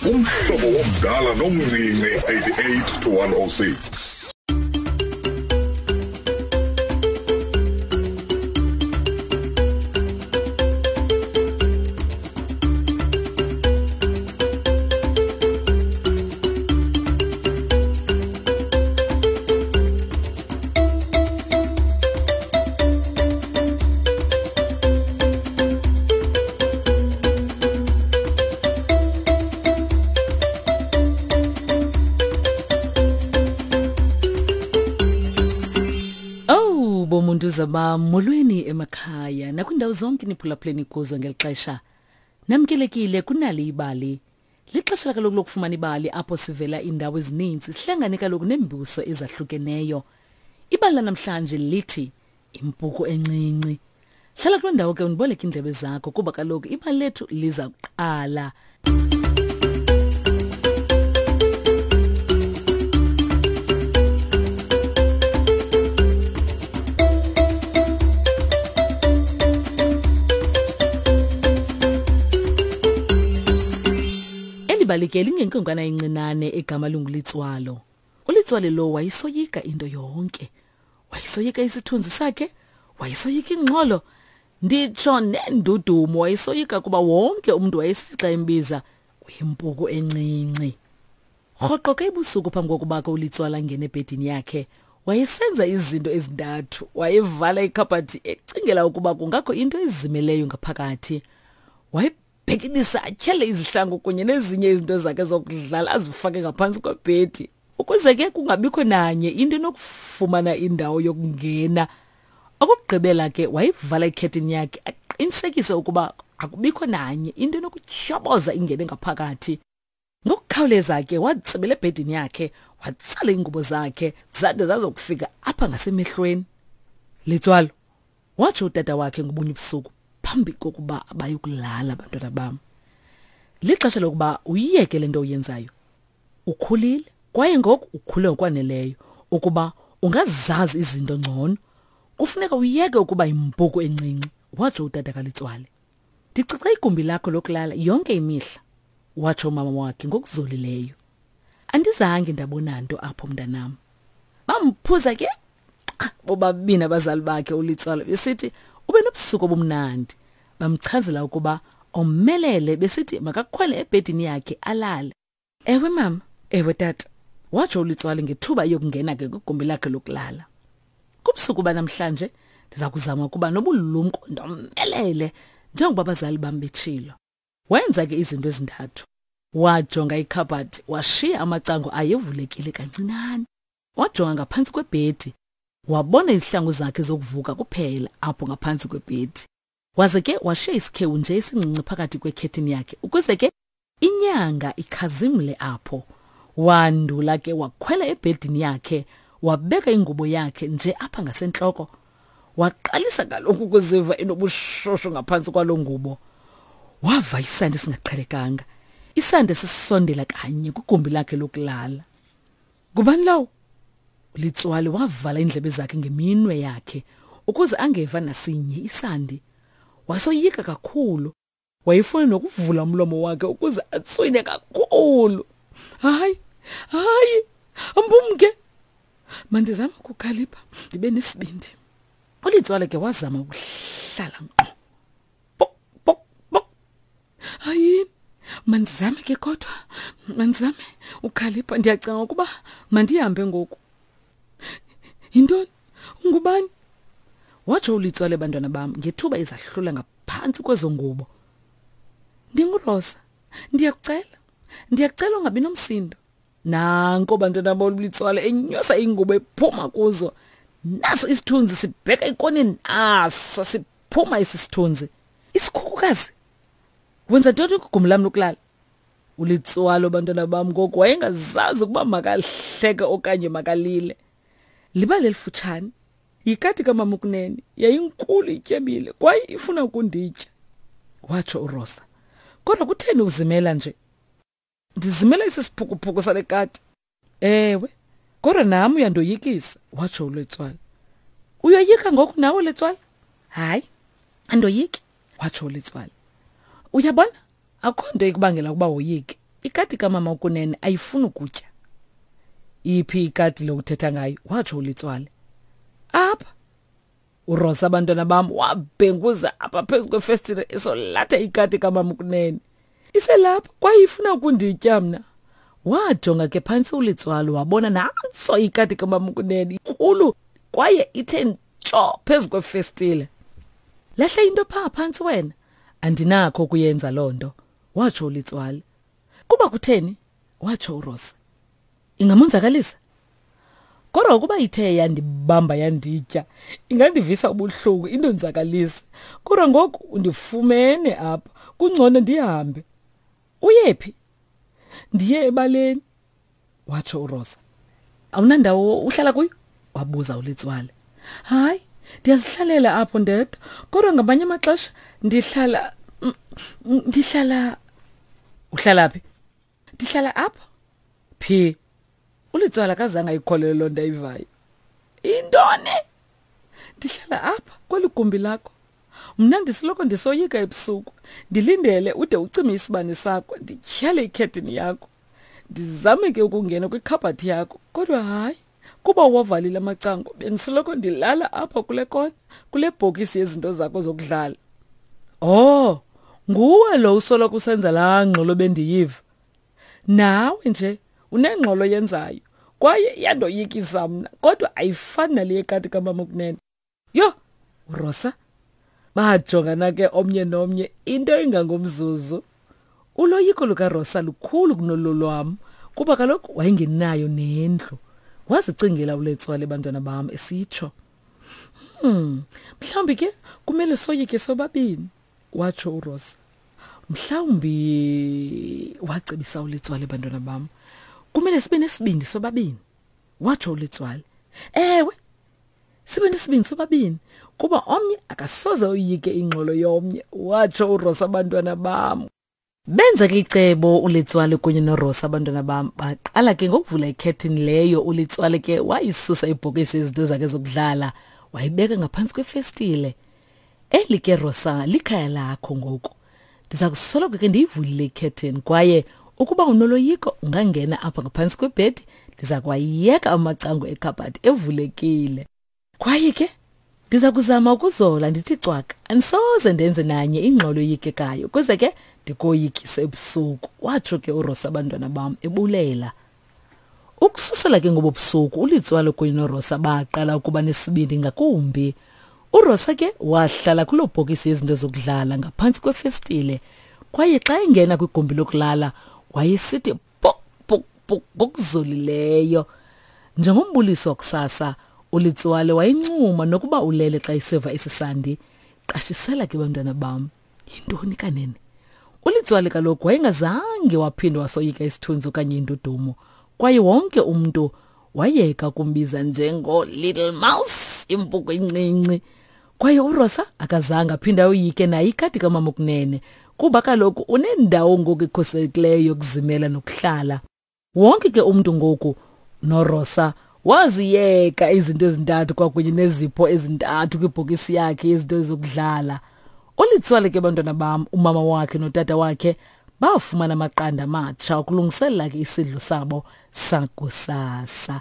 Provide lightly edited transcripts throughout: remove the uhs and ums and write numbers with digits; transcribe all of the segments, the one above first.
Umhlobo womdala nomncinci 88 to 106. Oh bomuntu zaba molweni emakhaya nakwindawo zonke niphulaphuleni kuzo ngeli xesha. Namkelekile kunali ibali. Lixesha kaloku lokufumana ibali apho sivela iindawo ezininzi sihlangane kaloku neembuso ezahlukeneyo. Ibali lanamhlanje lithi impuku encinci. Hlala kuloo ndawo ke undiboleke iindlebe zakho kuba kaloku ibali lethu liza kuqala. Eli bali ke lingenkwenkwana encinane egama linguLitswalo. ULitswalo lo wayesoyika into yonke. Wayesoyika isithunzi sakhe, wayesoyika ingxolo, nditsho nendudumo wayesoyika kuba wonke umntu wayesithi xa embiza uyimpuku encinci. Rhoqo ke ebusuku phambi kokuba ke uLitswalo angene ebhedini yakhe, wayesenza izinto ezintathu. Wayevala ikhabhathi ecingela ukuba kungakho into ezimeleyo ngaphakathi. Wayebhekilisa atyhele izihlangu kunye nezinye izinto zakhe zokudlala azifake ngaphantsi kwebhedi ukuze ke kungabikho nanye into enokufumana indawo yokungena. Okokugqibela ke wayevala ikhethini yakhe aqinisekise ukuba akubikho nanye into enokutyhoboza ingene ngaphakathi. Ngokukhawuleza ke watsibela ebhedini yakhe, watsala iingubo zakhe zade zazokufika apha ngasemehlweni. Litswalo, watsho utata wakhe ngobunye ubusuku phambi kokuba bayokulala abantwana bam. Lixesha lokuba uyiyeke le nto uyenzayo. Ukhulile kwaye ngoku ukhule ngokwaneleyo ukuba ungazazi izinto ngcono. Kufuneka uyeke ukuba yimpuku encinci, watsho utata kaLitswale. Ndicoca igumbi lakho lokulala yonke imihla, watsho umama wakhe ngokuzolileyo. Andizange ndabona nto apho mntanam. Bamphuza ke bobabini abazali bakhe uLitswalo besithi ube nobusuku obumnandi. Bamchazela ukuba omelele besithi makakhwele ebhedini yakhe alale. Ewe mama, ewe tata, watsho uLitswalo ngethuba eyokungena ke kwigumbi lakhe lokulala. Kubusuku banamhlanje ndiza kuzama ukuba nobulumko ndomelele njengoba abazali bam betshilo. Wenza ke izinto ezintathu. Wajonga ikhabhathi washiya amacango ayevulekile kancinane. Wajonga ngaphantsi kwebhedi wabona izihlangu zakhe zokuvuka kuphela apho ngaphantsi kwebhedi. Waze ke washiya isikhewu nje esincinci phakathi kwekhethini yakhe ukuze ke inyanga ikhazimle apho. Wandula ke wakhwela ebhedini yakhe wabeka ingubo yakhe nje apha ngasentloko. Waqalisa kaloku ukuziva enobushushu ngaphantsi kwaloo ngubo. Wava isandi esingaqhelekanga, isandi esisondela kanye kwigumbi lakhe lokulala. Ngubani lowo? Litswali wavala iindlebe zakhe ngeminwe yakhe ukuze angeva nasinye isandi. Wasoyika kakhulu. Wayefuna nokuvula umlomo wakhe ukuze atswine kakhulu. Hayi, hayi, mbumke. Mandizame ukukhalipha ndibe nesibindi. ULitswale ke wazama ukuhlala ngqo. Pok, pok, pok. Hayini, mandizame ke kodwa, mandizame ukhalipha. Ndiyacinga ukuba mandihambe ngoku. Yintoni? Ungubani? Watsho uLitswale bantwana bam ngethuba izahlula ngaphantsi kwezo ngubo. NdinguRosa. Ndiyakucela. Ndiyakucela ungabi nomsindo. Nanko bantwana bam uLitswale enyusa ingubo ephuma kuzo. Naso isithunzi sibheka ekoneni naso siphuma esi sithunzi. Isikhukukazi. Wenza ntoni kwigumbi lam lokulala? ULitswalo bantwana bam ngoku wayengazazi ukuba makahleke okanye makalile. Libali elifutshane. Yikati kamama ukunene yayinkulu ityebile kwaye ifuna ukunditya, watsho uRosa. Kodwa kutheni uzimela nje? Ndizimela esi siphukuphuku sale kati. Ewe, kodwa nam uyandoyikisa, watsho uLetswala. Uyoyika ngoku nawe Letswala? Hayi, andoyiki, watsho uLetswala. Uyabona, akukho nto ikubangela ukuba woyike. Ikati kamama ukunene ayifuni ukutya. Iphi ikati lo uthetha ngayo? Watsho uLitswale. Apha. URosa abantwana bam wabhenguza apha phezu kwefestile esolatha ikati kamama ukunene. Iselapha kwaye ifuna ukunditya mna. Wajonga ke phantsi uLitswalo wabona nantso ikati kamama ukunene inkulu kwaye ithe ntsho phezu kwefestile. Lahla into phaa phantsi wena. Andinakho ukuyenza loo nto, watsho uLitswalo. Kuba kutheni? Watsho uRosa. Ingamonzakalisa? Kodwa ukuba ithe yandibamba yanditya, ingandivisa ubuhlungu indonzakalise. Kodwa ngoku undifumene apha, kungcono ndihambe. Uyephi? Ndiye ebaleni, watsho uRosa. Awunandawo uhlala kuyo? Wabuza uLitswale. Hayi, ndiyazihlalela apho ndedwa, kodwa ngamanye amaxesha ndihlala ndihlala Uhlala phi? Ndihlala apha. Phi? ULitswala akazange ayikholelwe loo nto ayivayo. Intoni? Ndihlala apha kweli gumbi lakho. Mna ndisoloko ndisoyika ebusuku. Ndilindele ude ucime isibane sakho, ndityhale ikhethini yakho. Ndizame ke ukungena kwikhabhathi yakho, kodwa hayi. Kuba uwavalile amacango, bendisoloko ndilala apha kule kona, kule bhokisi yezinto zakho zokudlala. Oh, nguwe lo usoloko usenza laa ngxolo bendiyiva. Nawe nje unengxolo yenzayo kwaye iyandoyikisa mna, kodwa ayifani nale yekati kamama ukunene. Yho, uRosa! Bajongana ke omnye nomnye into engangomzuzu. Uloyiko lukaRosa lukhulu kunolo lwam kuba kaloku wayengenayo nendlu. Wazicingela uLetswale bantwana bam esitsho. Mhlawumbi ke kumele soyike sobabini, watsho uRosa. Mhlawumbi wacebisa uLetswale bantwana bam. Kumele sibe nesibindi sobabini, watsho uLetswale. Ewe, sibe nesibindi sobabini kuba omnye akasoze oyike ingxolo yomnye, watsho uRosa abantwana bam. Benza ke icebo uLetswale kunye noRosa abantwana bam. Baqala ke ngokuvula ikhethini leyo. ULetswale ke wayisusa ibhokisi yezinto zakhe zokudlala wayibeka ngaphantsi kwefestile. Eli ke Rosa likhaya lakho ngoku. Ndiza kusoloko ke ndiyivulile ikhethini kwaye ukuba unoloyiko ungangena apha ngaphantsi kwebhedi, ndiza kwayeka amacango ekhabhathi evulekile. Kwaye ke ndiza kuzama ukuzola ndithi cwaka, andisoze ndenze nanye ingxolo eyikekayo ukuze ke ndikoyikise ebusuku, watsho ke uRosa abantwana bam ebulela. Ukususela ke ngobo busuku uLitswalo kunye noRosa baqala ukuba nesibindi ngakumbi. URosa ke wahlala kuloo bhokisi yezinto zokudlala ngaphantsi kwefestile kwaye xa engena kwigumbi lokulala wayesithi pok pok pok ngokuzolileyo. Njengombuliso wakusasa, uLitswale wayencuma nokuba ulele xa eseva esi sandi. Qashisela ke bantwana bam, yintoni kanene? ULitswale kaloku wayengazange waphinda wasoyika isithunzi okanye indudumo, kwaye wonke umntu wayeka ukumbiza njengo-Little Mouse, impuku encinci. Kwaye uRosa akazange aphinde ayoyike naye ikati kamama okunene, kuba kaloku unendawo ngoku ekhuselekileyo yokuzimela nokuhlala. Wonke ke umntu ngoku noRosa waziyeka izinto ezintathu kwakunye nezipho ezintathu kwibhokisi yakhe yezinto ezokudlala. ULitswale ke bantwana bam, umama wakhe notata wakhe bafumana amaqanda amatsha ukulungiselela ke isidlo sabo sakusasa.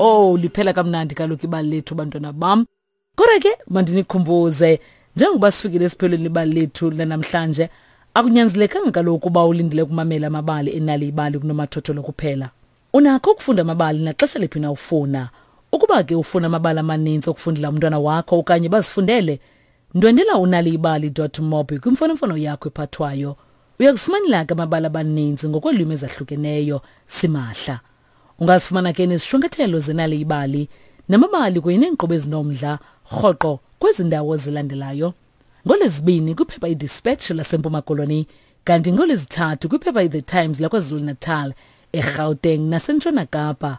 Oh, liphela kamnandi kaloku ibali lethu bantwana bam. Kodwa ke mandinikhumbuze njengoba sifikile esiphelweni ibali lethu lanamhlanje, akunyanzelekanga kaloku uba ulindele ukumamela amabali enali ibali kunomathotholo kuphela. Unakho ukufunda amabali naxesha liphi na ufuna. Ukuba ke ufuna amabali amaninzi okufundela umntwana wakho okanye bazifundele, ndwendela unaliibali.mobi kwimfonomfono yakho ephathwayo. Uyakufumanela ke amabali abaninzi ngokweelwimi ezahlukeneyo simahla. Ungazifumana ke nezishwankathelo zenali ibali namabali kunye neenkqubo ezinomdla rhoqo kwezi ndawo zilandelayo. NgoLwezibini kwiphepha iDispatch laseMpuma Koloni, kanti ngoLwezithathu kwiphepha iThe Times laKwaZulu-Natal, eGauteng naseNtshona Kapa.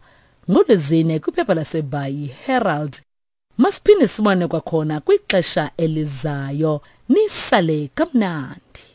NgoLwezine kwiphepha laseBhayi Herald. Masiphinde sibone kwakhona kwixesha elizayo. Nisale kamnandi.